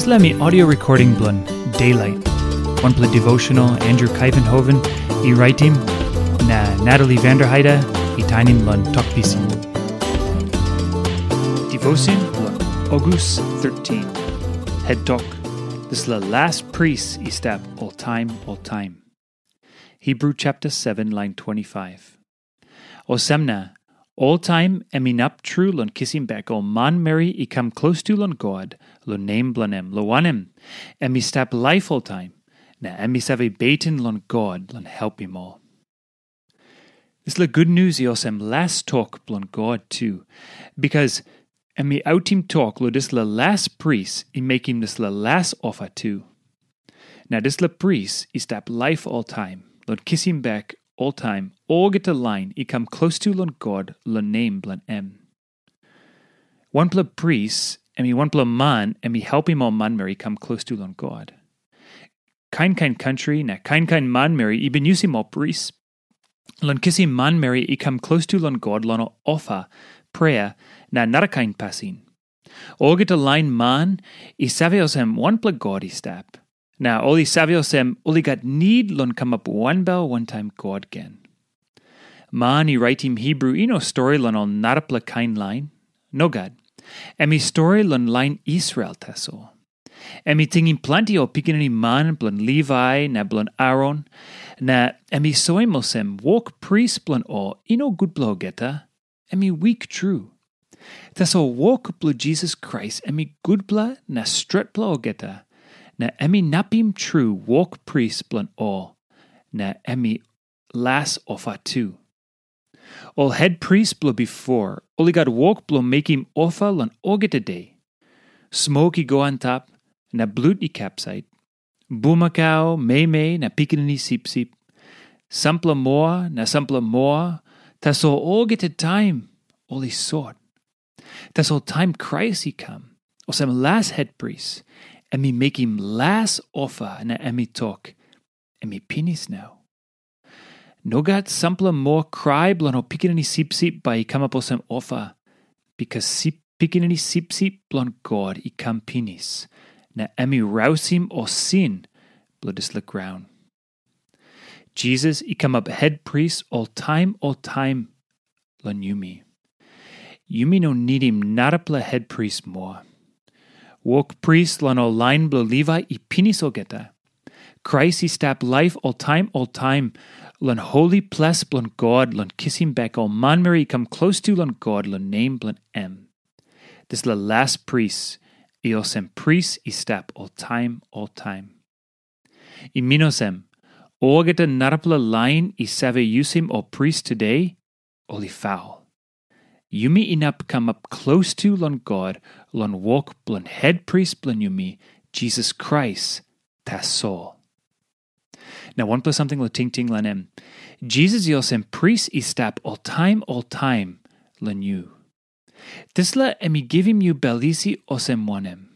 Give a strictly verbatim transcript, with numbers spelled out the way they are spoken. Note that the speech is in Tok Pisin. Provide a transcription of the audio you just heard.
Dispela em i audio recording bilong Daylight, wanpela devotional Andrew Kuyvenhoven i raitim, na Natalie Vanderheide i tainim long Tok Pisin. Devotion bilong August thirteen. Head Tok, dispela las pris i stap oltaim oltaim. Hebrew chapter seven, line twenty-five. Olsem na, oltaim em inap tru long kisim bek ol manmeri i kam klostu long God long nem bilong em, long wanem, em i stap laip oltaim, na em i save beten long God long helpim ol. Dispela gutnius i olsem las tok bilong God tu, bikas em i autim tok long dispela las pris i mekim dispela las ofa tu. Na dispela pris i stap laip oltaim, long kisim bek oltaim olgeta lain i kam klostu long God long nem bilong em. Wanpela pris, em i wanpela man, em i helpim ol manmeri i kam klostu long God. Kain kain kantri na kain kain manmeri i bin yusim ol pris long kisim manmeri i kam klostu long God long ofa, prea, na narakain pasin. Olgeta lain man i save olsem wanpela God i stap, na ol i save olsem ol i gat nid long kamap wanbel wantaim God gen. Man i raitim Hebrew i no stori long ol narapela kain lain. Nogat. Em i stori long lain Israel tasol. Em i tingim planti ol pikinini man bilong Livai na bilong Aron, na em i soim olsem wok pris bilong ol i no gutpela olgeta, em i wik tru. Tasol wok bilong Jisas Krais em i gutpela na stretpela olgeta, na em inapim tru wok pris bilong ol, na em i las ofa tu. Ol het pris bilong bipo, ol i gat wok bilong mekim ofa long olgeta de. Smok i go antap, na blut i kapsait. Bumakau, meimei, na pikinini sipsip. Sampela moa, na sampela moa, tasol olgeta taim ol i sot. Tasol taim Krais i kam, olsem las hetpris, em i mekim las ofa na em i tok, em i pinis nau. Nogat sampela moa krai bilong ol pikinini sipsip bai i kamap olsem ofa, bikas sip, pikinini sipsip bilong God i kam pinis, na em i rausim ol sin bilong dispela graun. Jisas i kamap hetpris oltaim oltaim long yumi. Yumi no nidim narapela hetpris moa. Wok pris long ol lain bilong Livai i pinis olgeta. Krais i stap laip oltaim oltaim long holi ples bilong God long kisim bek ol manmeri i kam klostu long God long nem bilong em. Dispela las pris i olsem pris i stap oltaim oltaim. I min olsem, olgeta narapela lain i save yusim ol pris tude, ol i faul. Yumi inap kamap klostu long God long wok bilong hetpris bilong yumi, Jisas Krais, tasol. Na wanpela samting long tingting long em. Jisas i olsem pris i stap oltaim oltaim long yu. Dispela em i givim yu bel isi olsem wanem?